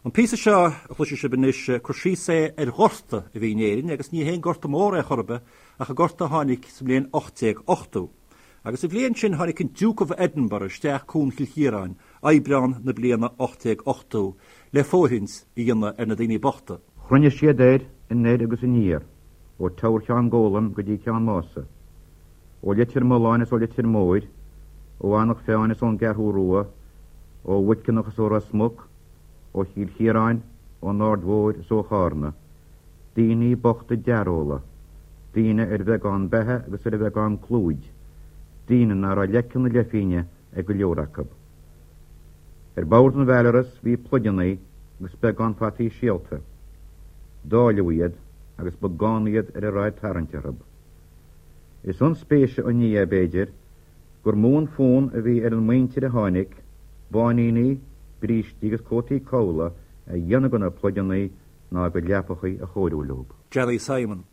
An píosa seo a chloisfidh sibh anois, cur síos é ar ghorta a bhí in Éirinn, agus ní haon gorta mór é chor ar bith, ach an gorta a tháinig sa mbliain 1880. Agus sa bhliain sin tháinig an Duke of Edinburgh isteach Cuan Chill Chiaráin, Aibreán na bliana 1880, le fóirithint a dhéanamh ar na daoine bochta. Chruinnigh siad air anoir agus aniar, ó Teamhair Cheann Gólaim go dtí Ceann Mása, ó Leitir Mealláin is ó Leitir Móir, ó Eanach Mheáin is ón gCeathrú Rua, ó Mhuiceanach is ó Ros Muc, ó Chill Chiaráin, ón Aird Mhóir is ó Chárna, daoine bochta dearóla, daoine ar bheagán beatha agus ar bheagán clúid, daoine ná raibh leice na leithphingne ag go leor acu. Ar bord an Bhelarus bhí pluideanna agus beagán fataí síolta. Dáileadh iad agus ba gann iad ar a raibh ag tarraingt orthu. Is ionspéise an ní é, b'fhéidir, gur mó an fonn a bhí ar an muintir a tháinig, báiníní, brístí agus cótaí cabhlaigh a dhéanamh de na pluideanna ná a gcuid leapachaí a chóiriú leo. Johnny Simon.